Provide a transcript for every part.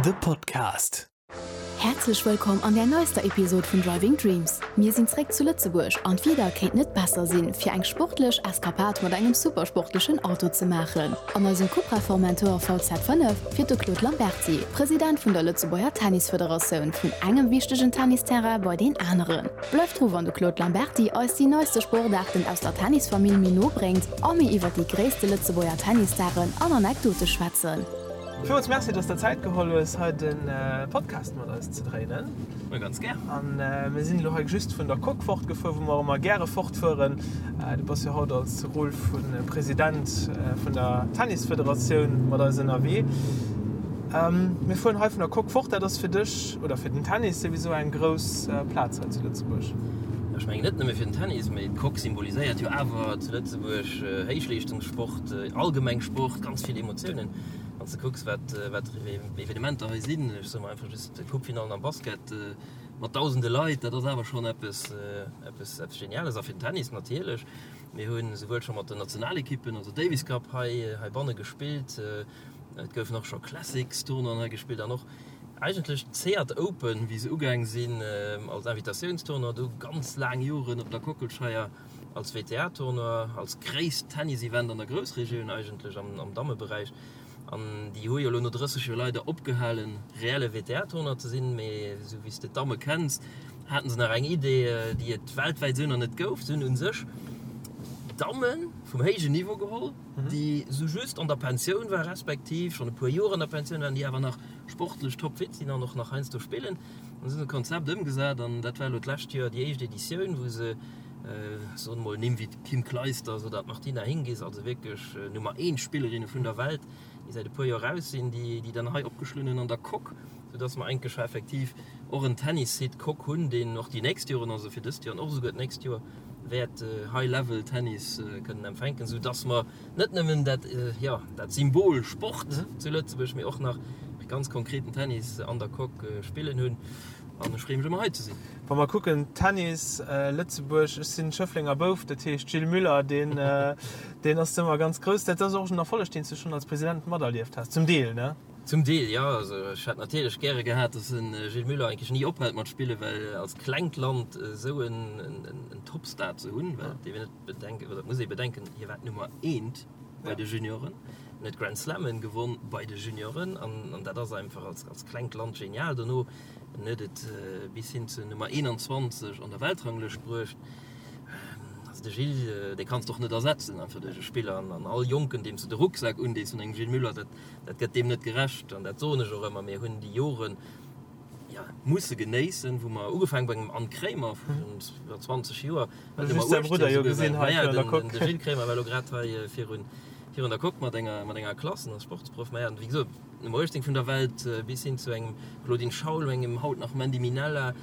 The Podcast. Häerzlech wëllkomm an der neister Episod vun Driving Dreams. Mir sinn zréck zu Lëtzebuerg an d'Wieder kéint net besser sinn, fir eng sportlech Eskapad mat engem supersportlechen Auto ze maachen. An eisem Cupra Formentor VZ5 fiert de Claude Lamberty, President vun der Lëtzebuerger Tennisfederatioun, vun engem wichtegen Tennisterrain bei deen aneren. Bleift dru wann de Claude Lamberty eis déi neiste Sportaarten aus der Tennisfamill méi no bréngt a mir iwwer déi gréisste Lëtzebuerger Tennisstaren an Anekdote schwätzen. Villmools Merci, dass der Zäit geholl hues, hei de Podcast mat eis ze dréinen. Ma ganz gär. An mir sinn elo hei just vun der Coque fortgefuer, wou mer ëmmer gäre fortfueren. Du bass jo haut als Rôle vu President vun der Tennisfederatioun mat eis ënnerwee. Mir fueren hei vun der Coque fort. Dat ass fir dech oder fir den Tennis souwisou eng grouss Plaz hei zu Lëtzebuerg. Ech mengen net nëmme fir den Tennis, mee d'Coque symboliséiert jo awer zu Lëtzebuerg Héichleeschtungssport, allgemeng Sport, ganz vill Emotiounen. Wann s de kucks, wat wat fir Evenementer hei sinn, ech soe mer einfach just d'Coupefinallen am Basket mat dausende Leit, dat ass awer schonn eppes eppes eppes Geniales. A fir den Tennis natierlech. Mir hu souwuel scho mat den Nationalekippen, also Davis Cup hei heibanne gespillt, et goufen och scho Classics-Tournoien hei gespillt an och eigentlech d'Seat Open, wéi se ugaang sinn als Invitatiouns-Tournoi, du ganz laang Joren op der Kockelscheier als WTA-Tournoi, als gréisst Tennis-Event an der Groussregioun eigentlech am Dammeberäich. An déi hu jo elo no 30 Joer leider opgehalen, reelle WTA-Tournoi ze sinn. Mee esou wéi s de d'Damme kenns, haten se nach eng Idee, déi et weltwäit esou nach net gouf. Se hunn u sech Damme vum héijen Niveau geholl, déi esou just an der Pensioun waren, respektiv schonn e puer Joer an der Pensioun waren, déi awer nach sportlech topfit sinn an och nach heiansdo spillen. An se hunn e Konzept ëmgesat an dat war elo d'lescht Joer déi éischt Editioun, wou se, soen mol Nimm wéi d'Kim Clijsters oder d'Martina Hingis, also wierklech Nummer eent Spillerinne vun der Welt, déi säit e puer Joer raus sinn, déi déi dann hei opgeschloen hunn an der Coque, soudass mer eigentlech scho effektiv och en Tennissite Coque hunn, deen och déi nächst Joren, also fir dëst Joer an och esouguer d'nächst Joer, wäert High-Level Tennis kënnen empfänken, soudass mer net nëmmen dat, jo, dat Symbol Sport zu Lëtzebuerg, mee och nach ganz konkreten Tennis an der Coque spillen hunn. An ech freeë mech ëmmer hei ze sinn. Wa mer kucken, Tennis Lëtzebuerg, ech sinn Schëfflenger Bouf, dat heescht Gilles Müller, deen, deen ass ëmmer ganz grouss. Dat ass och en Erfolleg, deen s du schonn als President materlieft has, zum Deel, ne? Zum Deel, jo. Also ech hätt natierlech gäre gehat, datt de Gilles Müller eigentlech ni ophält mat spillen, well als klengt Land esou en Topstar ze hunn, well et dierf een net bedenken, oder et muss ee bedenken, hie war d'Nummer eent bei de Junioren, en huet Grand Slammen gewonn bei de Junioren an dat ass einfach als klengt Land genial. Dono En huet et bis hin zur Nummer 21 an der Weltranglëscht bruecht. Also de Gilles, dee kanns de och net ersetzen einfach duerch e Spiller. An all Jonken, deem s de de Rucksak undees vun engem Gilles Müller, dat, dat gëtt deem net gerecht. An dat soen ech och ëmmer, mir hunn déi Joren, jo, musse genéissen, wou mer, ugefaangen bei engem Anne Kremer virun iwwer 20 Joer, war d'Nummer 18 esouguer war. Naja, den, de Gilles Kremer war elo grad hei virun, virun der Coque mat enger, mat enger Klass, en ass Sportsproff. Maja, an wéi gesot, Nummer 18 vun der Welt, bis hin zu engem Claudine Schaul, engem haut nach Mandy Minella,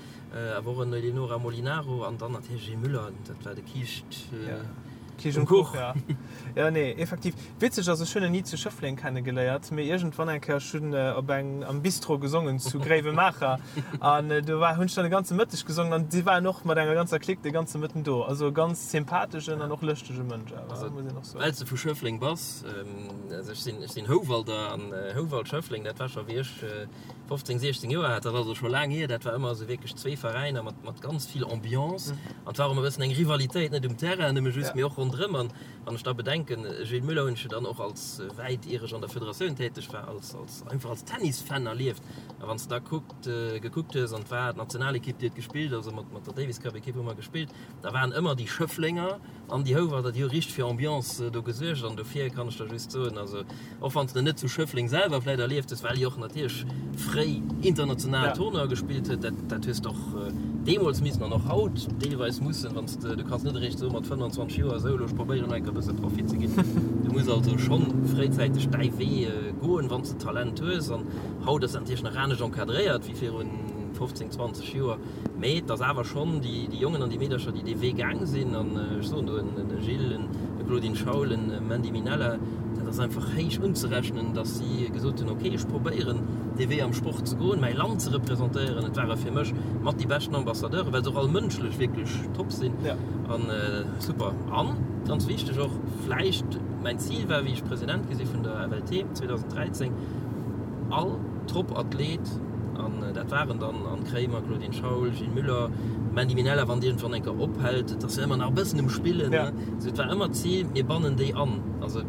awer och en Eleonora Molinaro an dann natierlech Gilles Müller, dat war de Kiischt um Kuch. Jo, nee, effektiv. Witzeg ass, ech hunn en ni zu Schëffleng kennegeléiert, mee iergendwann eng Kéier, ech hunn op eng am Bistro gesongen zu Gréiwemaacher an do war hunn ech dann de ganze Mëtteg gesongen an si waren och mat enger ganzer Clique de ganze Mëtten do. Also e ganz sympatheschen an och lëschtege Mënsch awer, muss een och soen. Well s de vu Schëffleng bass, Also ech sinn, ech sinn Houwalder an Houwald Schëffleng, dat war scho wéi ech 15, 16 Joer hat, dat ass also scho laang hier. Dat war ëmmer esou wierklech zwee Veräiner mat, mat ganz vill Ambiance an et war och ëmmer e bëssen eng Rivalitéit, net um Terrain nëmme just, mee och ronderëm. An wann ech da bedenken, Gilles Muller hunn ech jo dann och als, wäit ier ech an der Federatioun täteg war, als, als einfach als Tennisfan erlieft. A wann s de da kuckt, gekuckt hues an et war d'Nationalekipp, déi huet gespillt, also mat, mat der Davis Cup Ekipp hu mer gespillt, da waren ëmmer déi Schëfflenger, An déi Houwalder, déi hu richteg fir Ambiance do gesuergt an dofir kann ech der just soen, also och wann s de net zu Schëffleng selwer vläit erlieft hues, well hie och natierlech fréi international Tournoie gespillt huet, dat dat hues de och deemools missen an och haut deelweis mussen, wann s de, du kanns net eréischt soe mat 25 Joer, esou elo ech probéieren nach eng Kéier e bësse Profi ze ginn. Du muss also schonn fréizäiteg däi Wee goen, wann s de Talent hues an haut ass dat natierlech nach anescht encadréiert wéi virun 15, 20 Joer. Mee et ass awer schonn déi Jongen an déi Meedercher, déi dee Wee gaang sinn, an ech soen do en Gilles, e Claudine Schaul, en Mandy Minella, dat ass einfach héich unzerechnen, datt si gesot hunn, ok, ech probéieren dee Wee am Sport ze goen, mäi Land ze representéieren. Et ware fir mech mat déi beschten Ambassadeuren, well se och all mënschlech wierklech top sinn an super. An ganz wichteg och vläicht, mäin Zil war, wéi ech President gi si vun der FLT 2013, all. Top-Athlet, an dat waren dann Anne Kremer, Claudine Schaul, Gilles Müller, Mandy Minella, wann déi iergendwann eng Kéier ophält, et ass jo ëmmer nach e bëssen um Spillen, ne? Sou, et war ëmmer d'Zil, mir bannen déi an. Also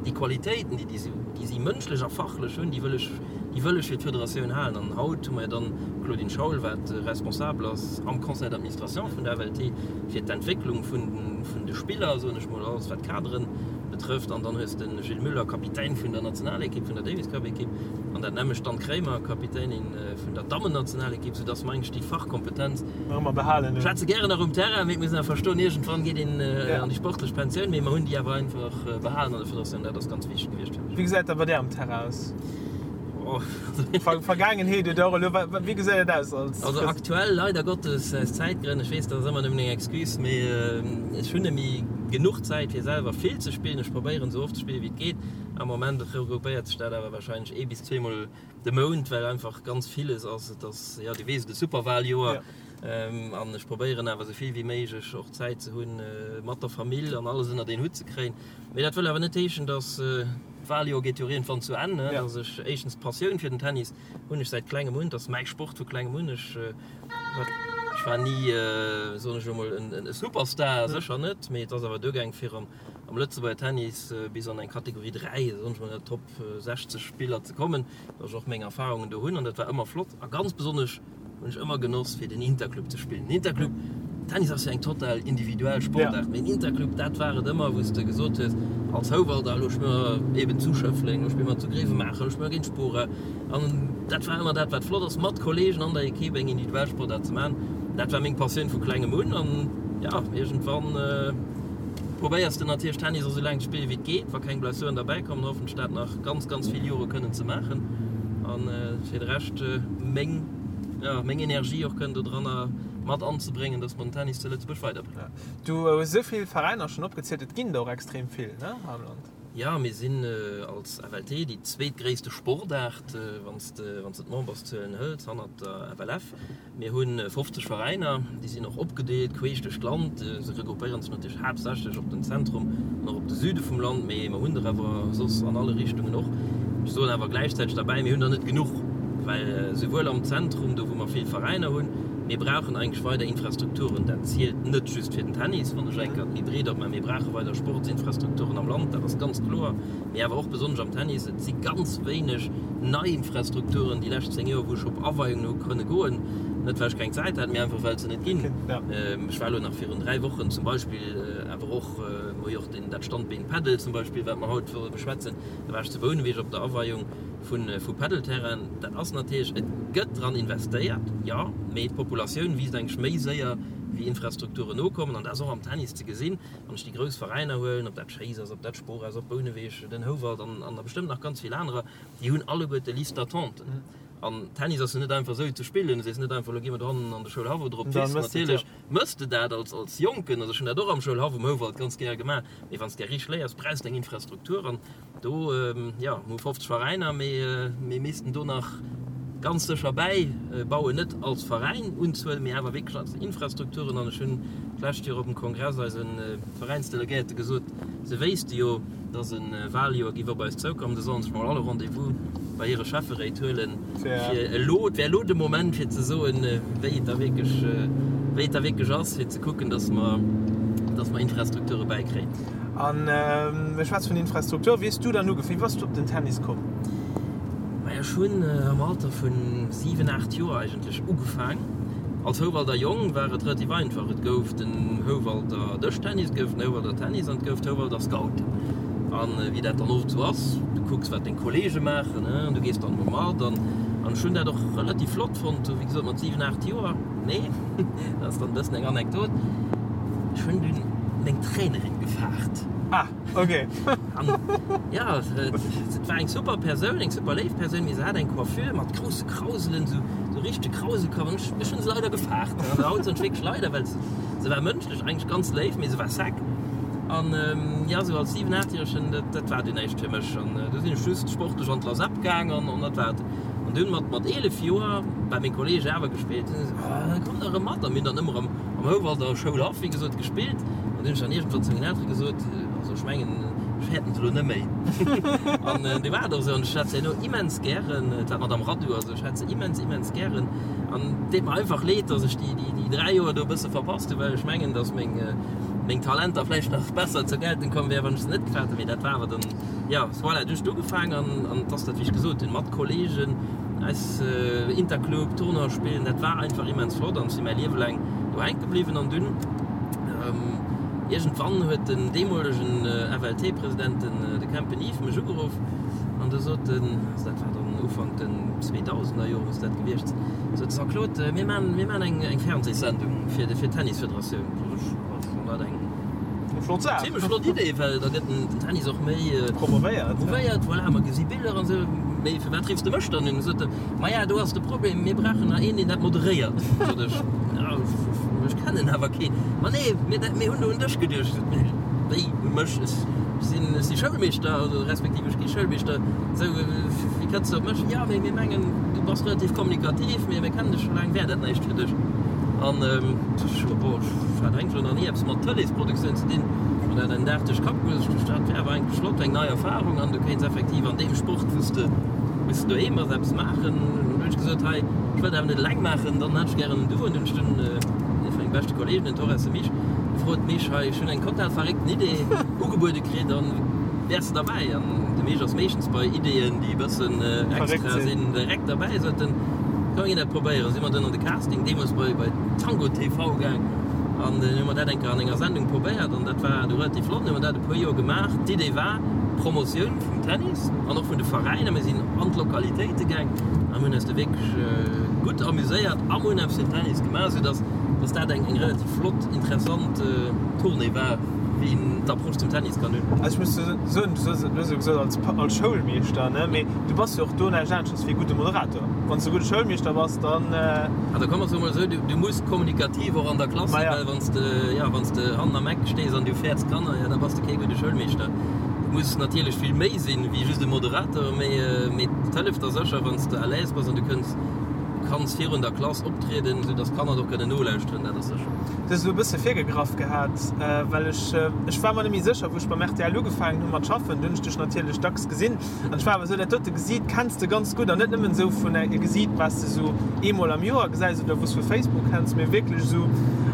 déi Qualitéiten, déi déi si mënschlech a fachlech hunn, déi wëll ech, déi wëll ech fir d'Federatioun halen. An haut hu mer jo dann d'Claudine Schaul, wat responsabel ass am Conseil d'administration vun der FLT fir d'Entwécklung vun vun de Spiller, soen ech mol, alles wat d'Kaderen betrëfft. An dann hues de Gilles Müller, Kapitän vun der Nationalekipp, vun der Davis-Cup-Ekipp, an dat nämmlecht d'Anne Kremer, Kapitänin vun der Dammennationalekipp, soudass mer eigentlech déi Fachkompetenz Nach ëmmer behalen hunn. Schwätze gären nach um Terrain, mee et muss een awer verstoen, iergendwann geet een an déi sportlech Pensioun, mee mer hunn déi awer einfach behalen an der Federatioun. Dat ass ganz wichteg gewiescht fir mech. Wéi gesäit dat bei där am Terrain aus? Vergaangenheet oder och elo, wéi gesäit et aus als. Also aktuell leider Gottes aus Zäitgrënn, ech weess dat ass ëmmer nëmmen eng Excuse, mee ech hunn net méi genuch Zäit fir selwer vill ze spillen. Ech probéieren esou oft ze spillen wéi et geet. Am Moment regroupéiert sech dat awer warscheinlech ee bis zweemol de Mount, well einfach ganz villes ass. Et ass, jo, du weess et, e Superwaljoer an ech probéieren awer esou vill wéi méiglech och Zäit ze hunn mat der Famill an alles ënnert een Hutt ze kréien. Mee dat wëll awer net heeschen, dass. D'Waljoer geet jo iergendwann zu Enn, ne? Dass ech éischtens d'Passioun fir den Tennis hunn ech säit klengem un, dat ass mäi Sport vu klengem un. Ech ech war ni, soen ech elo mol, en Superstar, sécher net, mee et ass awer duergaang fir am am Lëtzebuerger Tennis bis an eng Kategorie 3, soen ech mol, an der Top 60 Spiller ze kommen, dass ech och meng Erfarungen do hunn an dat war ëmmer flott a ganz besonnesch Hunn ech ëmmer genoss fir den Interclub ze spillen. Den Interclub, Tennis ass jo eng total individuell Sportaart, mee den Interclub dat war et ëmmer wou s de gesot hues als Houwalder, elo spille mer eben zu Schëffleng, elo spille mer zu Grevenmacher, elo spille mer géint Spora. An dat war ëmmer dat wat flott ass, mat Kollegen an der Equipe eng individuell Sportaart ze maachen. Dat war meng Passioun vu klengem un an jo, iergendwann probéiers de natierlech Tennis och esou laang ze spillen wéi et geet, wa keng Blessuren derbäi kommen, hoffentlech dat nach ganz ganz vill Jore kënnen ze maachen an fir de Rescht meng ja meng Energie och kënnen do dranner mat anzebréngen, dass mer den Tennis zu Lëtzebuerg weiderbréngen. Du hues esou vill Veräiner schonn opgezielt, et ginn der och extrem vill, ne, hei am Land? Jo, mir sinn als FLT déi zweetgréisste Sportaart, wann s de wann s de d'Memberszuelen hëls, hannert der FLF. Mir hu 50 Veräiner, déi sinn och opgedeelt queesch duerch d'Land. Se regroupéieren sech natierlech haaptsächlech op den Zentrum an och op de Süde vum Land, mee mer hunn der awer soss an alle Richtungen och. Ech soen awer gläichzäiteg derbäi, mir hunn der net genuch, well souwuel am Zentrum, do wou mer vill Veräiner hunn, mir brauchen eigentlech weider Infrastrukturen. Dat zielt net just fir den Tennis, wann ech eng Kéier méi breet opmaachen. Mir brauche weider Sportsinfrastrukturen am Land, dat ass ganz kloer. Mee awer och besonnesch am Tennis, et si ganz wéineg nei Infrastrukturen déi lescht 10 Joer, wou ech op Aweiungen hu kënne goen, net well ech keng Zäit hat, mee einfach well et se net ginn. Ech war elo nach virun 3 Wochen zum Beispill, awer och, mer hu jo och deen, dat Standbeen Padel zum Beispill, wat mer haut wëlle beschwätzen, da war ech zu Bouneweg op der Aweiung vu vu Padelterrainen. Dat ass natierlech, et gëtt dran investéiert, jo, mee d'Populatioun wiisst eigentlech méi séier wéi Infrastrukturen nokommen an dat ass och am Tennis ze gesinn. Wann ech déi grouss Veräiner huelen, ob dat Schéiss ass, ob dat Spor ass, ob Bouneweg, den Houwald an an der bestëmmt nach ganz vill anerer, déi hunn alleguerte Liste d'attenten. An Tennis ass jo net einfach esou ze spillen. Du sees net einfach, elo gi mer dohannen an de Schoulhaff oder op d'Wiss. Natierlech mëss de dat als als Jonken, also ech hunn dat och am Schoulhaff um Houwald ganz gäre gemaach, mee wann s de richteg léiers, brauchs de eng Infrastruktur. An Do, jo, mir hu 50 Veräiner, mee mir missten do nach ganz sécher bäibauen, net als Veräin Unzuel, mee awer wierklech als Infrastrukturen. An ech hunn d'lescht Joer op dem Kongress eise Veräinsdelegéierte gesot, se wéisste jo, dass e Wahljoer géif op eis zoukommen, se sollen sech mol all e Rendez-vous bei hire Schäfferéit huelen, fir elo, et wär elo de Moment fir ze soen, wéi et da wierklech, wéi et da wierklech ass, fir ze kucken, dass mer, dass mer Infrastrukture bäikréien. An mir schwätze vun Infrastruktur. Wéi hues du dann ugefaangen? Wéi bass du op den Tennis komm? Maja, ech hunn am Alter vun 7, 8 Joer eigentlech ugefaang. Als Houwalder Jong war et relativ einfach, et gouf den Houwalder Dëschtennis, et gouf den Houwalder Tennis an et gouf d'Houwalder Scouten. An wéi dat dann oft esou ass, du kucks wat deng Kollege maachen an du gees dann emol mat. An ech hunn dat och relativ flott fonnt, wéi gesot mat 7, 8 Joer. Mee, dat ass dann e bëssen eng Anekdot, ech hunn dunn meng Trainerin gefaart. Ah, ok. An jo, et war eng super Persoun, eng super léif Persoun, mee se hat eng Coiffure mat grousse Krauselen, esou esou richtege Krauselkapp. An ech, ech hunn se leider gefaart. An haut soen ech wierklech leider, well se, se war mënschlech eigentlech ganz léif, mee se war sec. An jo, esou als 7, 8-Järegen, dat, dat war dunn näischt fir mech. An du sinn ech just sportlech an d'Lasep gaang an, an dat war et. An dunn mat, mat 11 Joer, well meng Kolleege awer gespillt hunn, esou, oh, komm da erëm mat. A mir hunn dann ëmmer am, am Houwalder Schoulhaff, wéi gesot, gespillt. An dunn hunn ech dann iergendwann zu mengen Eltere gesot, also ech mengen, ech fäerten se elo net méi. An du war et och esou. An ech hat se herno immens gären, et war d'Madame Radu, also ech hat se immens, immens gären. An et deet mer einfach leed, datt ech déi, déi, déi 3 Joer do e bësse verpasst hunn, well ech mengen, datt meng, meng Talenter vläicht nach besser zur Geltung komm wären, wann ech se net gehat hätt. Mee dat war awer dann, jo, voilà, du hues ugefaangen an, an et ass dat, wéi ech gesot hunn, mat Kollegen, eis Interclub, Tournoi spillen, dat war einfach immens flott an ech si mäi Liewe laang do hänke bliwwen. An dunn iergendwann huet den deemolegen FLT-President, den de Kempen Yves, mech ugeruff an du sot en, also dat war dann Ufank den 2000er Jore muss dat gewiescht sinn, sot Jean-Claude, mir maan, mir maan eng eng Fernsehssendung fir fir d'Tennisfederatioun. Sot ech, ech fann dat eng Flott Saach. Zimmlech flott Idee, well da gëtt den Tennis och méi promovéiert. Promovéiert, voilà, mer gesi Biller an esou. Mee firwat riffs de mech dann un? Sot e, Maja, do ass de Problem, mir brauchen nach een, deen dat moderéiert. Sot ech, Ja, ech kennen awer keen. Ma nee, mir, mir hunn do un dech geduecht. Sot e, Wéi, u mech? Ech sinn, ech si Schoulmeeschter, also respektiv ech gi Schoulmeeschter. Esou, wéi kënns de op mech? Jo, mee mir mengen, du bass relativ kommunikativ, mir, mir kennen dech scho laang, wär dat näischt fir dech? An ech, bon, ech hat eigentlech elo nach ni eppes mat Tëleesproduktioun ze dinn, an dat en Dag duerch Kapp goen, ech duecht, dat wär awer eigentlech flott, eng nei Erfarung an du kéints effektiv an deem Sport, wou s de, wou s de doheem bass, eppes maachen. An du hunn ech gesot, hei, ech wëll dat awer net eleng maachen, dann hätt ech gären en Duo. An dunn hunn ech dunn ee vu menge beschte Kolleegen, den Torres, de Mich, gefrot, Mich, hei, ech hunn eng total verréckten Idee ugebuede kritt an wäers de derbäi? An de Mich ass meeschtens bei Ideeën, déi e bëssen extra sinn, direkt derbäi, sot en, komm mir ginn dat probéieren. Si mer dunn an de Casting deemools bei, bei Tango TV gaang an dunn hu mer dat eng Kéier an enger Sendung probéiert an dat war du relativ flott. Hunn mer dat e puer Joer gemaach. D'Idee war Promotioun vum Tennis an och vun de Veräiner. Mir sinn an d'Lokalitéite gaang a mir hunn eis do wierklech gutt amuséiert a mir hunn eppes fir den Tennis gemaach, soudass dass dat eng eng relativ flott, interessant Tournée war, wéi een d'Approche zum Tennis kann hunn. Also ech muss soen, du hues jo gesot als als Schoulmeeschter, ne, mee du bass jo och do näischt aneschters wéi e gudde Moderator. Wann s de e gudde Schoulmeeschter bass, dann. Also komm mer soe mol esou, du muss kommunikativ och an der Klass sinn, well wann s de, jo, wann s de hannen am Eck stees an du fäerts d'Kanner, jo, da bass de kee gudde Schoulmeeschter. Du muss natierlech vill méi sinn wéi just e Moderator, mee, mee et hëlleft der sécher, wann s de à l'aise bass an du kënns, kanns virun der Klass optrieden, esou dass d'Kanner och kënnen nolauschteren, dat ass sécher. Du hues elo e bësse virgegraff gehat, well ech, ech war mer net méi sécher, wou ech beim rtl ugefaangen hu mat schaffen, du hunn ech dech natierlech dacks gesinn. An ech war awer esou, dat dote Gesiit kenns de ganz gutt an net nëmmen esou vun e Gesiit, wat s de esou eemol am Joer gesäis oder wou s vu Facebook kenns, mee wierklech esou.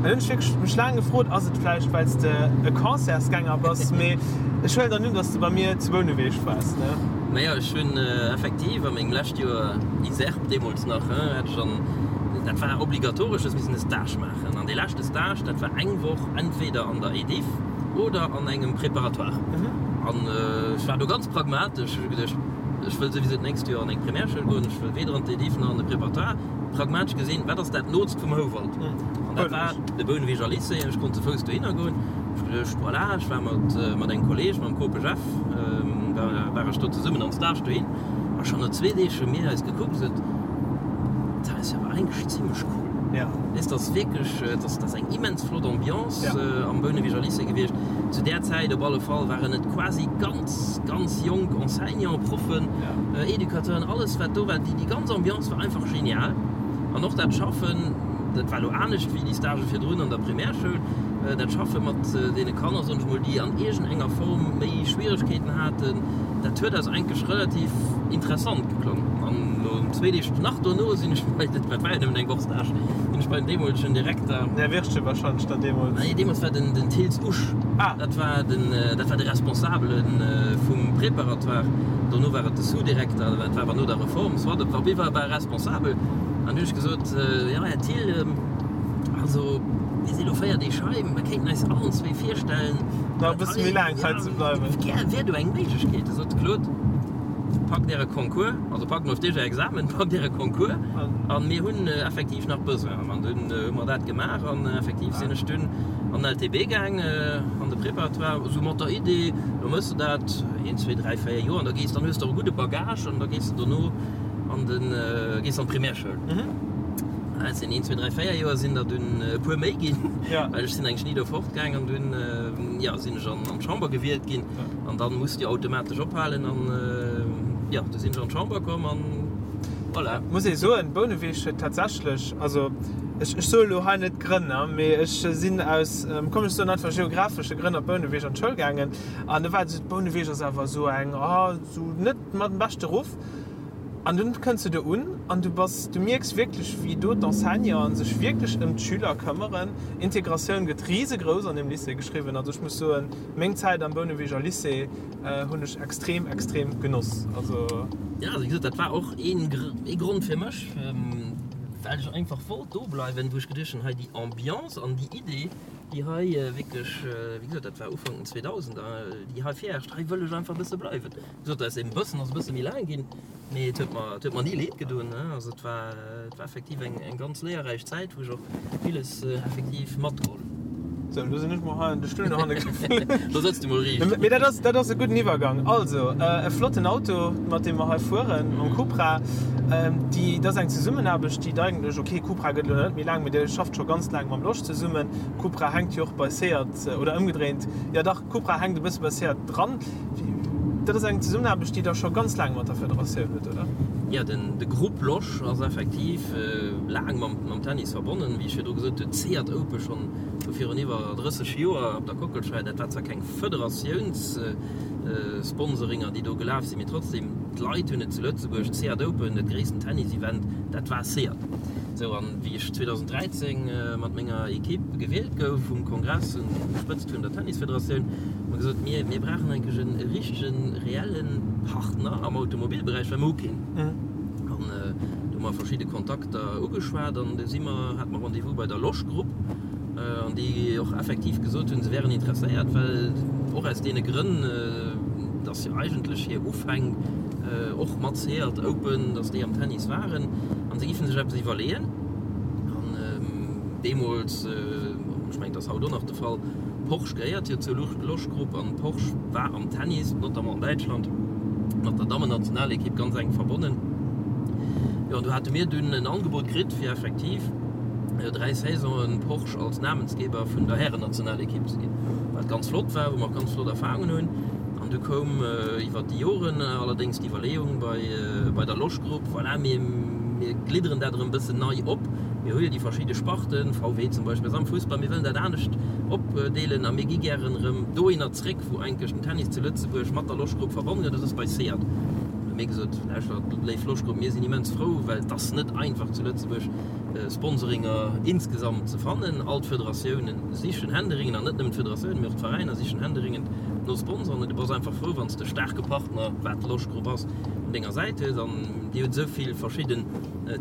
An hunn ech wierklech mech laang gefrot, ass et vläicht, well s de e Concertsgänger bass? Mee ech huelen dann un, dass de bei mir zu Bouneweg waars, ne? Naja, ech hunn effektiv a mengem lescht Joer ISERP deemools nach, hat ech an, dat war obligatoresch, hues missen e Stage maachen. An dee leschte Stage, dat war eng Woch entweder an der EDIFF oder an engem Préparatoire. An ech war do ganz pragmatesch. Ech hu geduecht, ech wëll souwisou d'nächst Joer an eng Primärschoul goen, ech wëll weder an d'EDIFF nach an de Préparatoire. Pragmatesch gesinn, wat ass dat nootst vum Houwald? An dat war de Bouneweger Lycée. Ech konnt ze Fouss dohinner goen. Ech hu geduecht, voilà, ech war mat, mat engem Kolleeg, mam Kope Jeff, war, war ech do zesummen am Stage dohin. A schonn no zwee Deeg hu mir eis gekuckt a gesot, Dat ass jo awer eigentlech zimlech cool. Weess, dat ass wierklech, dat ass eng immens flott Ambiance am Bouneweger Lycée gewiescht. Zu där Zäit op alle Fall waren et quasi ganz, ganz jonk Enseignanten, Proffen, Educateuren, alles wat do war. Déi ganz Ambiance war einfach genial. An och dat Schaffen, dat war elo anescht wéi déi Stagë virdrun an der Primärschoul, dat Schaffe mat deene Kanner, soen ech mol, déi an iergendenger Form méi Schwieregkeeten haten, dat huet eis eigentlech relativ interessant geklongen. An no zwee Deeg, nach dono sinn ech bei, dat war jo nëmmen eng Woch Stage, sinn ech bei den deemolegen Direkter. Den Här Wirtgen wahrscheinlech dann deemools. Nee, deemools war den den Thills Usch. Ah. Dat war den, dat war de Responsabele vum Préparatoire. Dono war et de Sous-Direkter, dat war awer no der Reform, soit, op alle Fall war e Responsabel. An du hunn ech gesot, Jo, Här Thill, also mir si lo 4 Deeg hei, mir kéinten eis allen zwee virstellen, Nach e bësse méi laang hei ze bleiwen. Wär do eng Méiglechkeet? Da sot de Claude, Packt äre Concours, also packt mol op Iech är Examen, packt äre Concours an mir hunn effektiv nach Besoin. An dunn hu mer dat gemaach an effektiv sinn ech dunn an den LTB gaang, an de Préparatoire, esou mat der Idee, lo méchs de dat een, zwee, dräi, véier Joer an da gees, dann hues de och e gudde Bagage an da gees de dono an den, gees an d'Primärschoul. Et sinn een, zwee, dräi, véier Joer sinn der dunn e puer méi ginn, well ech sinn eigentlech ni do fortgaang an dunn, jo, sinn ech an d'Chamber gewielt ginn an dann muss de jo automatesch ophalen an, jo, du sinn ech an d'Chamber komm an voilà. Muss ee soen, Bouneweg huet tatsächlech, also. Ech soe lo hei net d'Grënn, mee ech sinn aus, komm ech soen einfach geographesche Grënn op Bouneweg an d'Schoul gaangen. An do war et esou, Bouneweg ass awer esou eng, oh, esou net mat dem beschte Ruff. An dunn kënns du do un an du bass, du mierks wierklech, wéi do d'Enseignanten sech wierklech ëm d'Schüler këmmeren. Integratioun gëtt risegrouss an deem Lycée geschriwwen. Also ech muss soen, meng Zäit am Bouneweger Lycée hunn ech extrem, extrem genoss. Also. Jo, wéi gesot, dat war och ee Grond fir mech, well ech einfach wollt do bleiwen, wou ech geduecht hunn, hei déi Ambiance an déi Idee, déi hei wierklech, wéi gesot, dat war Ufank den 2000er, déi hei virherrscht, hei wëll ech einfach e bësse bleiwen. Wéi gesot, aus deem bëssen ass e bësse méi laang ginn, mee et huet mer, et huet mer ni leed gedoen. Also et war, et war effektiv eng, eng ganz léierräich Zäit, wou ech och villes effektiv matgeholl hunn. Sou, elo sinn ech mol hei an de Stull no hanne geflunn. Do sëtz du mol riicht. Mee dat ass, dat ass e gudden Iwwergang. Also, e flotten Auto, mat deem mer hei fueren, mam Cupra. Déi, dat ass eng Zesummenaarbecht, déi et eigentlech, ok, Cupra gëtt elo net méi laang, mee Dir schafft scho ganz laang mam Losch zesummen. Cupra hänkt jo och bei Seat, oder ëmgedréint, jo dach, Cupra hänkt e bësse bei Seat dran. Dat ass eng Zesummenaarbecht, déi Der scho ganz laang mat der Federatioun hutt, oder? Jo, den, de Groupe Losch ass effektiv laang mam, mam Tennis verbonnen. Wéi ech virdru gesot hunn, d'Seat Open schonn vu virun iwwer 30 Joer op der Kockelscheier. Dat war zwar keng Federatiounssponsoриnger, déi do gelaf sinn, mee trotzdem, d'Leit hunn et zu Lëtzebuerg, d'Seat Open, dat gréissten Tennis-Event, dat war Seat. Sou, an wéi ech 2013 mat menger Equipe gewielt gouf um Kongress un der Spëtzt vun der Tennisfederatioun, hu mer gesot, mir, mir brauchen eigentlech e richtegen, reelle Partner am Automobilberäich, well mer hu keen. An do hu mer verschidde Kontakter ugeschwat an du si mer, hate mer Rendez-vous bei der Losch Group an déi och effektiv gesot hunn, se wären interesséiert, well och aus deene Grënn, dass jo eigentlech hir Ufäng och mat Seat Open, dass déi am Tennis waren an se giffen sech eppes iwwerleeën. An deemools, ech mengen, et ass haut och nach de Fall, Porsche gehéiert jo zur Losch Group an Porsche war am Tennis, notamment an Däitschland, mat der Dammennationalekipp ganz enk verbonnen. Jo, an do hate mir dunn en Angebot kritt, fir effektiv 3 Saisonen Porsche als Namensgeber vun der Härennationalekipp ze ginn, wat ganz flott war, wou mer och ganz flott Erfahrungen hunn. An du koum iwwert déi Joren allerdéngs d'Iwwerleeung bei, bei der Losch Group, voilà, mir, mir glidderen dat erëm e bëssen nei op, mir hu jo déi verschidde Sparten, VW zum Beispill ass am Fussball, mir wëllen dat anescht opdeelen a mir gi gären erëm dohinner zréck, wou eigentlech den Tennis zu Lëtzebuerg mat der Losch Group verbonnen gëtt, dat ass bei Seat. Hu mir gesot, lauschtert, léif Losch Group, mir sinn immens frou, well et ass net einfach zu Lëtzebuerg Sponsoringer insgesamt ze fannen. All d'Federatiounen sichen händeringend, an net nëmmen d'Federatiounen, mee och d'Veräiner sichen händeringend no Sponsoren. An du bass einfach frou, wann s de e staarke Partner, wat d'Losch Group ass, un denger Säit hues. An Dir hutt esou vill verschidden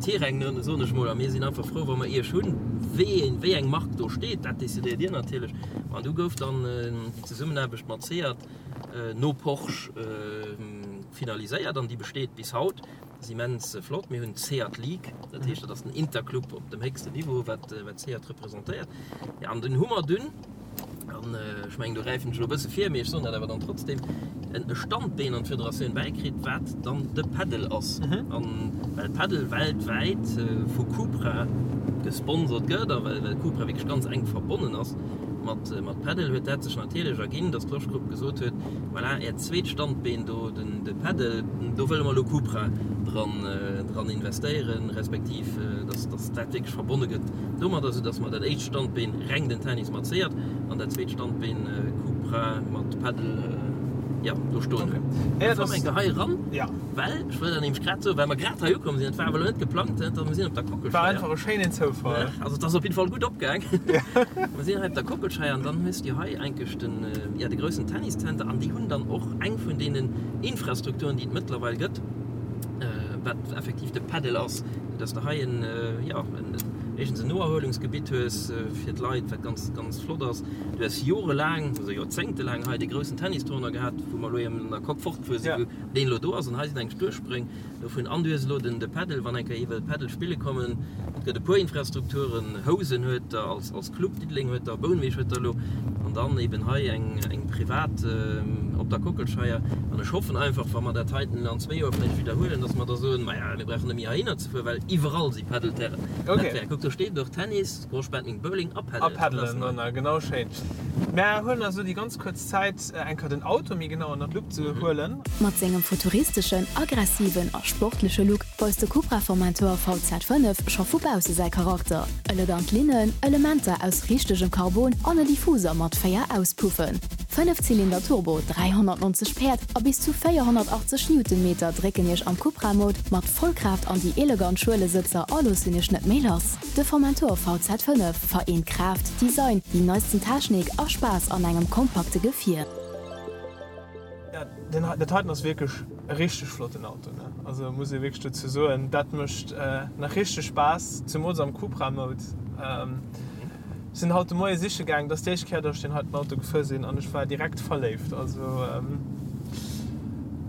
Terrainen, soen ech mol, a mir sinn einfach frou, wa mer Iech hunn. Wéi een, wéi eng Mark do steet, dat decidéiert Dir natierlech. An du gouf dann déi Zesummenaarbecht mat Seat no Porsche finaliséiert an déi besteet bis haut. Ass immens flott. Mir hunn d'Seat League, dat heescht, dat ass den Interclub op dem héchsten Niveau, wat Seat representéiert. Jo, an dunn hu mer dunn, an ech mengen, do gräifen ech elo e bësse vir, mee ech soen dat awer dann trotzdem, e Standbeen an d'Federatioun bäikritt, wat dann de Padel ass. An well Padel weltwäit vu Cupra gesponsert gëtt a well Cupra wierklech ganz enk verbonnen ass mat Padel, huet dat sech natierlech erginn, datt d'Losch Group gesot huet, Voilà, Äert zweet Standbeen do, den de Padel, do wëlle mer elo Cupra dran, dran investéieren, respektiv dass, dass dat wierklech verbonne gëtt domadder, soudass mer dat éischt Standbeen reng den Tennis mat Seat an dat zweet Standbeen Cupra mat Padel, jo, do stoen hunn. Okay. Komm eng Kéier hei eran. Ja. Well, ech wëll dat nämlech grad soen, well mer grad hei ukomm sinn, et war awer elo net geplangt, da mer sinn op der Kockelscheier. War einfach e schéinen Zoufall. Also et ass op jidde Fall gutt opgaang. Mer sinn hei op der Kockelscheier an dann hues du hei eigentlech den, ja, de groussen Tenniszenter an déi hunn dann och eng vun deenen Infrastrukturen, déi et mëttlerweil gëtt, wat effektiv de Padel ass, dass de hei en, jo, en, éischtens en Noerhuelungsgebitt hues fir d'Leit, wat ganz, ganz flott ass. Du hues jorelaang, also joerzéngtelaang hei dee groussen Tennistournoi gehat, wou mer elo eben an der Coque fortgefuer sinn, wou deen elo do ass an hei sinn eng Duerchspréng dovun an du hues elo den de Padel, wann eng Kéier ee wëll Padel spille kommen. Et gëtt e puer Infrastrukturen, Housen huet der als als Club, Diddeleng huet der, Bouneweg huet der elo an dann eben hei eng eng. privat op der Kockelscheier. An ech hoffen einfach, wa mer dat heiten an zwéi Joer vläicht widderhuelen, dass mer da soen, Maja, mir brauchen net méi heihinner ze fueren, well iwwerall si Padelterrainen. Dat wär, kuck, do steet et och, Tennis, Squash, Badminton, Bowling a Padel. A Padelen, genau, schéin. Mär huelen eis elo déi ganz kuerz Zäit, eng Kéier den Auto méi genau ënner d'Lupp ze huelen. Mat sengem futuristeschen, aggressiven a sportleche Look weist de Cupra Formentor VZ5 scho vu bausse säi Charakter. Elegant Linnen, Elementer aus richtegem Carbon an e Diffuser mat 4 Auspuffen. Fënnefzylinder Turbo, 390 Päerd a bis zu 480 Newtonmeter drécken Iech am Cupra Mode mat Vollkraaft an déi elegant Schuelesëtzer a loossen Iech net méi lass. De Formentor VZ5 vereent Kraaft, Design, déi neisten Technik a Spaass an engem kompakte Gefier. Jo, dat heiten ass wierklech e richteg flotten Auto, ne? Also muss ee wierklech dozou soen, dat mécht nach richteg Spaass, zemools am Cupra Mode. Sinn haut de Moie siche gaang, dat ass déi éischt Kéier, datt ech deen heiten Auto gefuer sinn an ech war direkt verléift. Also.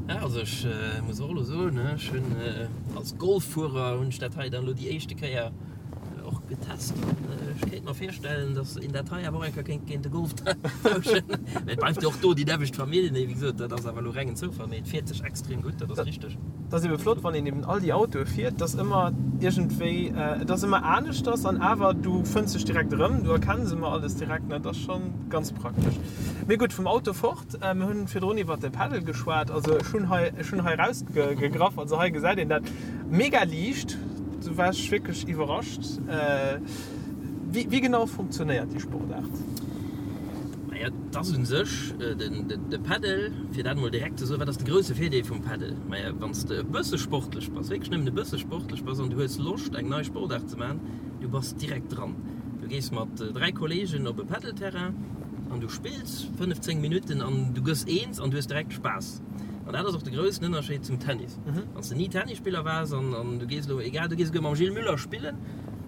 Ja, also ech muss och elo soen, ech hunn als Golffuerer hunn ech dat hei dann elo déi éischte Kéier och getest an ech kéint mer virstellen, datt een dat hei awer och eng Kéier kéint géint e Golf tauschen. Mä et bleift jo och do déi nämmlecht Famill, mee wéi gesot, dat ass awer elo rengen Zoufall, mee et fiert sech extrem gutt, dat ass richteg. Et ass ebe flott, wann een eben all déi Autoe fiert, dass ëmmer iergendwéi, et ass ëmmer aneschters an awer du fënns dech direkt erëm, du erkenns ëmmer alles direkt, dat ass scho ganz praktesch. Mee gutt, vum Auto fort, mir hunn virdrun iwwert de Paddle geschwat, also ech hunn hei, ech hunn hei erausgegraff, also hei gesäit een dat mega liicht, do war ech wierklech iwwerrascht. Wéi, wéi genau funktionéiert déi Sportaart? Maja, et ass u sech de Paddle, fir dat emol direkt ze soen, wat ass de grousse Virdeel vum Paddle? Maja, wann s de e bësse sportlech bass, wierklech nëmmen e bësse sportlech bass an du hues Loscht eng nei Sportaart ze maachen, du bass direkt dran. Du gees mat 3 Kolleegen op e Paddle-Terrain an du spills 5, 10 Minutten an du gëss eens an du hues direkt Spaass. An dat ass och de groussen Ënnerscheed zum Tennis. Wann s de ni Tennisspiller waars an du gees elo, egal, du gees esouguer mam Gilles Müller spillen,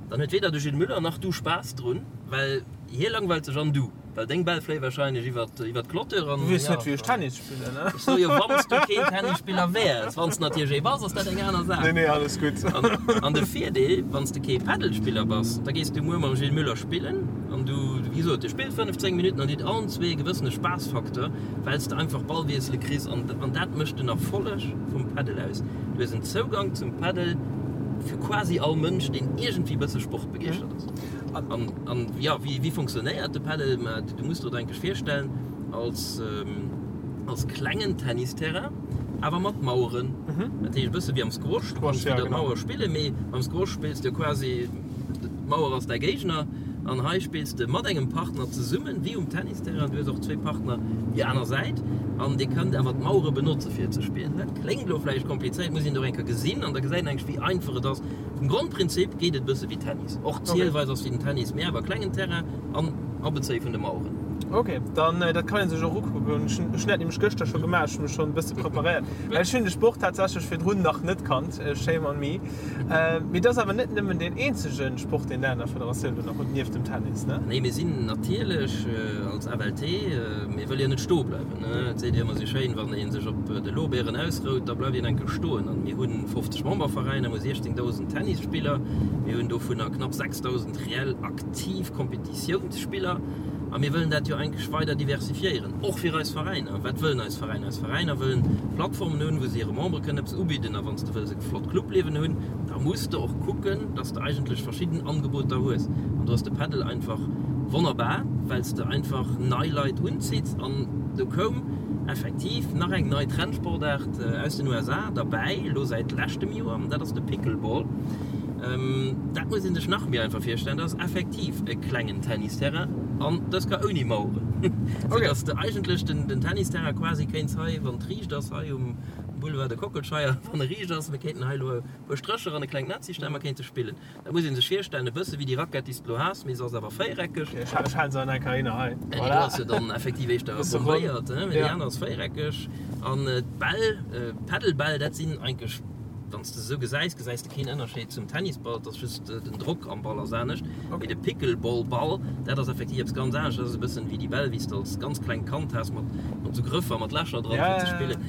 dann huet weder de Gilles Müller nach du Spaass drun, well hie langweilt sech an du. Well deng Bäll fléie wahrscheinlech iwwert iwwert d'Clôture an. Du weess net wéi ech Tennis spillen, ne? Ech soe jo wann s du keen Tennisspiller wäers. Wann s de natierlech ee bass, ass dat eng aner Saach. Nee, nee, alles gutt. An an de Virdeel, wann s de kee Paddelspiller bass, da gees du muer mam Gilles Müller spillen an du, wéi gesot, dir spillt 15 Minutten an dir hutt allen zwee e gewëssene Spaassfaktor, well s de einfach Ballwiessele kriss an an dat mécht den Erfolleg vum Paddel aus. Du hues en Zougang zum Paddel fir quasi all Mënsch, deen iergendwéi bësse sportbegeeschtert ass. An. An jo, wéi funktionéiert de Padel? Ma du muss der et eigentlech virstellen als als klengen Tennisterrain, awer mat Maueren. Dat heescht e bësse wéi am Squash, du kanns widder d'Mauer spillen, mee beim Squash spills de quasi, d'Mauer ass däi Géigner an hei spills de mat engem Partner zesummen, wéi um Tennisterrain. Du hues och zwee Partner déi aner Säit an dir kënnt awer d'Mauere benotze fir ze spillen. Dat kléngt elo vläicht komplizéiert, muss een et och eng Kéier gesinn an da gesäit een eigentlech wéi einfach et ass. Vum Grondprinzip geet et e bësse wéi Tennis. Och d'Zielweis ass wéi den Tennis, mee awer klengen Terrain an Abezéie vun de Maueren. Ok, dann dat kann een sech och ukucken. Ech hunn dat nämlech gëschter scho gemaach, ech hu mech schonn e bësse preparéiert, well ech hunn de Sport tatsächlech virdrun nach net kannt, shame on me. Mee et ass awer net nëmmen deen eenzege Sport, deen der an der Federatioun do nach hutt, nieft dem Tennis, ne? Nee, mir sinn natierlech als FLT, mir wëlle jo net stoe bleiwen. Et seet ee ëmmer esou schéin, wann ee sech op de Lorbeeren ausrout, da bleift een enke stoen. An mir hu 50 Memberveräiner, mir hu 16.000 Tennisspiller, mir hunn dovunner knapp 6.000 reell aktiv Kompetitiounsspiller. A mir wëllen dat jo eigentlech weider diversifiéieren, och fir eis Veräiner. Wat wëllen eis Veräiner? Eis Veräiner wëllen Plattformen hunn, wou se hire Membere kënnen eppes ubidden. A wann s de wëlls e flott Clubliewen hunn, da muss de och kucken, dass de eigentlech verschidden Angeboter hues. An do ass de Padel einfach wonnerbar, well s de einfach nei Leit unzitts. An do koum effektiv nach eng nei Trendsportaart aus den USA derbäi, elo säit leschtem Joer, an dat ass de Pickleball. Dat muss ee sech nach méi einfach virstellen, dat ass effektiv e klengen Tennisterrain an dës Kéier ouni Maueren, sou dass de eigentlech den Tennisterrain quasi kéints hei, wann et riicht ass, hei um Boulevard de Kockelscheier, wann e riicht ass, mir kéinten hei elo e puer Strécher an e klengt Netz histellen, mer kéinte spillen. Dat muss ee sech virstellen, e bësse wéi déi Rackett, déi s de elo has, mee se ass awer véiereckeg. Ech halen se an enker hinner hei. Déi do ass jo dann effektiv éischter bombéiert, mee déi aner ass véiereckeg. An d'Bäll, d'Paddlebäll, dat sinn eigentlech, wann s de se esou gesäis, gesäis de keen Ënnerscheed zum Tennisball, et ass just den Drock am Ball ass anescht. Mee de Pickleball-Ball, dat ass effektiv eppes ganz anescht, dat ass e bëssen wéi déi Bäll, wéi s de als ganz klengt Kand has, mat esou Grëffer, mat Lächer dran, fir ze spillen.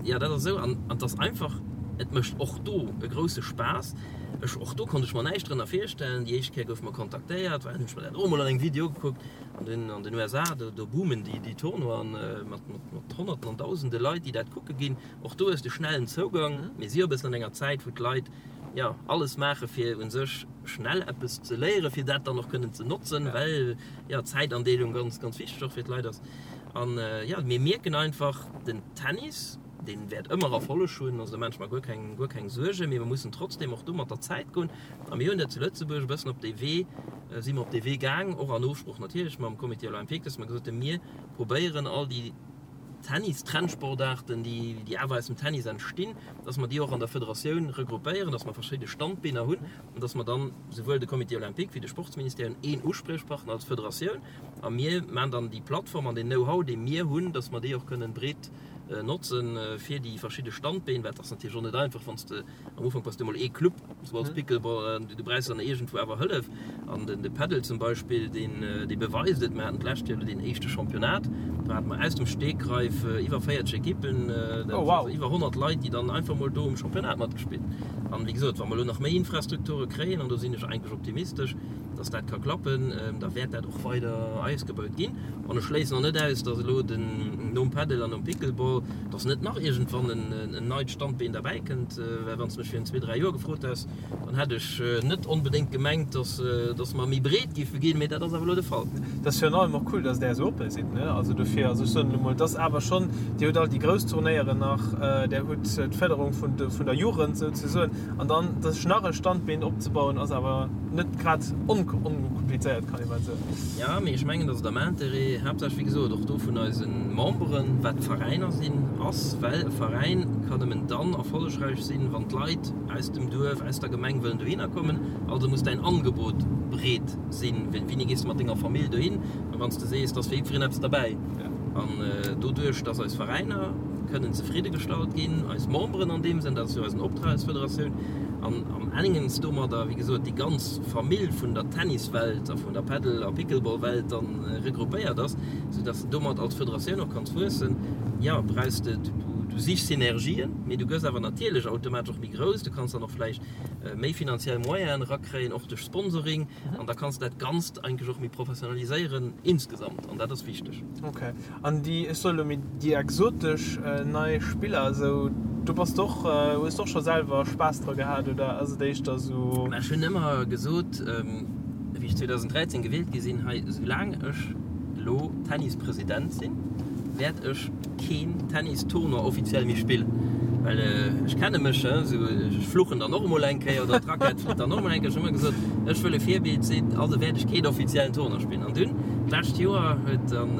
Jo, dat ass esou. An et ass einfach. Et mécht och do e grousse Spaass. Ech, och do konnt ech mer näischt drënner virstellen. Déi éischt Kéier goufe mer kontaktéiert, well hunn ech mer dat och emol an engem Video ugekuckt. An den, an den USA, do, do boomen déi, déi Tournoien mat, mat, mat Honnerten an Dausende Leit, déi dat kucke ginn. Och do hues de schnellen Zougang. Mir si jo e bëssen an enger Zäit, wou d'Leit, jo, alles maache fir u sech schnell eppes ze léieren, fir dat dann och kënnen ze notzen, well, jo, d'Zäitandeelung ganz, ganz wichteg och fir d'Leit ass. An, jo, mir mierken einfach, den Tennis, Deen wäert ëmmer Erfolleg hunn, also do maan ech mer guer keng, guer keng Suergen, mee mer mussen trotzdem och do mat der Zäit goen. A mir hunn dat zu Lëtzebuerg e bëssen op dee Wee, si mer op dee Wee gaang, och an Ofsprooch natierlech mam Comité olympique, dass mer gesot hunn, mir probéieren all déi Tennis-Trendsportaarten, déi, déi awer aus dem Tennis entstinn, dass mer déi och an der Federatioun regroupéieren, dass mer verschidde Standbeener hunn an dass mer dann souwuel de Comité olympique wéi de Sportsministère hunn een Uspriechpartner als Federatioun a mir maan dann déi Plattform an deen Know-how, dee mir hunn, dass mer déi och kënnen breet notzen fir déi verschidde Standbeen, well et ass natierlech och net einfach, wann s de am Ufank bass du emol ee Club, sou als Pickleball, du brauchs dann iergendwou awer Hëllef an den de Padel zum Beispill, deen dee beweist et. Mir haten d'lescht Joer elo deen éischte Championnat, do hate mer aus dem Stegreif iwwer 40 Ekippen, dat Oh wow. also iwwer 100 Leit, déi dann einfach mol do um Championnat matgespillt. An wéi gesot, wa mer elo nach méi Infrastrukture kréien, an do sinn ech eigentlech optimistesch, dass dat ka klappen, da wäert dat och weider ausgebaut ginn. An ech schléissen och net aus, dass elo den, nom Padel an nom Pickleball, dass net nach iergendwann en neit Standbeen derbäi kënnt. Well wann s de mech virun zwee, dräi Joer gefrot häss, dann hätt ech net onbedéngt gemengt, dass, dass mer méi breet géife ginn. Mee dat ass awer elo de Fall. Et ass virun allem och cool, dass Der esou oppe sidd, ne? Also dofir, also ech soen elo mol, et ass awer schonn, Dir hutt all déi grouss Turnéieren nach, Der hutt d'Fërderung vun de, vun der Jugend souzesoen. An dann sech nach e Standbeen opzebauen, ass awer net grad onkomplizéiert, kann ee bal soen. Jo, mee ech mengen, datt et am Interêt, haaptsächlech wéi gesot och do vun eise Memberen, wat d'Veräiner sinn, ass, well e Veräin kann nëmmen dann erfollegräich sinn, wann d'Leit aus dem Duerf, aus der Gemeng wëllen dohinner kommen. Also muss däin Angebot breet sinn. Wéini gees de mat denger Famill dohin? A wann s de sees, et ass fir jiddwereen eppes derbäi. An doduerch, datt eis Veräiner kënnen zefridde gestallt ginn, eis Memberen an deem Sënn, dat ass jo eisen Optrag als Federatioun, an am engens domadder, wéi gesot, déi ganz Famill vun der Tenniswelt a vun der Paddle a Pickleball-Welt dann regroupéiert ass, soudass de domat als Federatioun och kanns wuessen, jo, brauchs de, du sichs Synergien, mee du gëss awer natierlech automatesch och méi grouss, du kanns dann och vläicht méi finanziell Moyenen erakréien, och duerch Sponsoring, an da kanns de dat Ganzt eigentlech och méi professionaliséieren insgesamt, an dat ass wichteg. Ok. An déi, ech soe lo méi déi exotesch nei Spiller esou, do bass de och, hues de och scho selwer Spaass dra gehat oder ass et éischter esou? Mä ech hunn ëmmer gesot, wéi ech 2013 gewielt gi sinn hei, soulaang ech elo Tennispresident sinn, wäert ech keen Tennistournoi offiziell méi spillen. Well ech kenne mech, esou ech fluchen dann och emol eng Kéier oder d'Rackett flitt dann och emol eng Kéier. Ech hunn ëmmer gesot, ech wëll e Virbild sinn, also wäert ech keen offiziellen Tournoi spillen. An dunn, d'lescht Joer, huet dann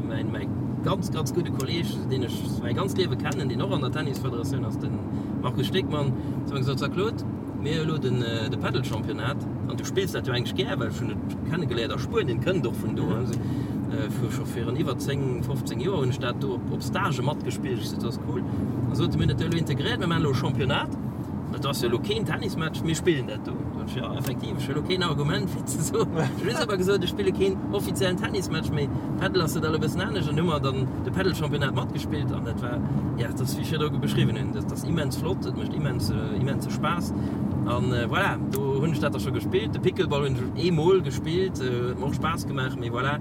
mäin, mäi ganz, ganz gudde Kolleeg, deen ech mäi ganzt Liewe kennen, deen och an der Tennisfederatioun ass, de Markus Stegmann, zu mir gesot, So Claude, mir hu elo den, de Padel-Championnat an du spills dat jo eigentlech gär, well ech hunn et kennegeléiert a Spuenien, kënnt och vun do, vu scho virun iwwer 10, 15 Joer hunn ech dat do op, op Stagë matgespillt. Ech sot, dat ass cool. An sot e, mir hunn dat jo elo integréiert, mir maachen elo e Championnat. Et ass jo elo keen Tennismatch, mir spillen dat do. Sot ech, jo, effektiv, ech hu elo keen Argument fir ze soen. Ech hu just awer gesot, ech spille keen offiziellen Tennismatch méi. Padel ass dat elo e bëssen anescht. An hu mer dann de Padel-Championnat matgespillt an dat war, ja, dat ass wéi ech virdru beschriwwen hunn, dat ass immens flott, et mécht immens, immense Spaass. An voilà, do hunn ech dat da scho gespillt. De Pickleball hunn ech eemol gespillt, huet mer och Spaass gemaach, mee voilà.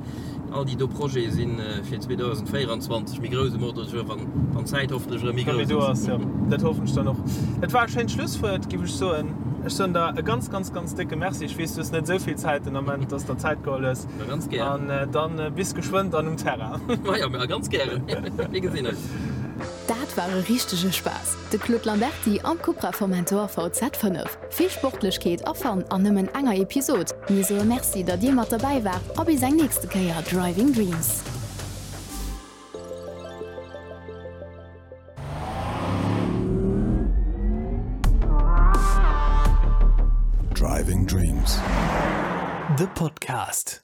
All déi do Projete si fir 2024 méi grouss um Ordre du jour, wann wann d'Zäit hoffentlech erëm méi grouss ass. Jo, dat hoffen ech dann och. Dat war e schéint Schlusswuert, géif ech soen. Ech soen der e ganz, ganz, ganz décke Merci. Ech weess, du hues net esou vill Zäit den Ament, dass de der Zäit geholl hues. Ma ganz gären. An dann bis geschwënn dann um Terrain. Majo, ma ganz gären. Mir gesinn eis. Dat war e richtege Spaass, de Claude Lamberty am Cupra Formentor VZ5. Vill Sportlechkeet a Fun an nëmmen enger Episod. Mir soe Merci, datt dir mat derbäi waart a bis eng nächste Kéier Driving Dreams. Driving Dreams, de Podcast.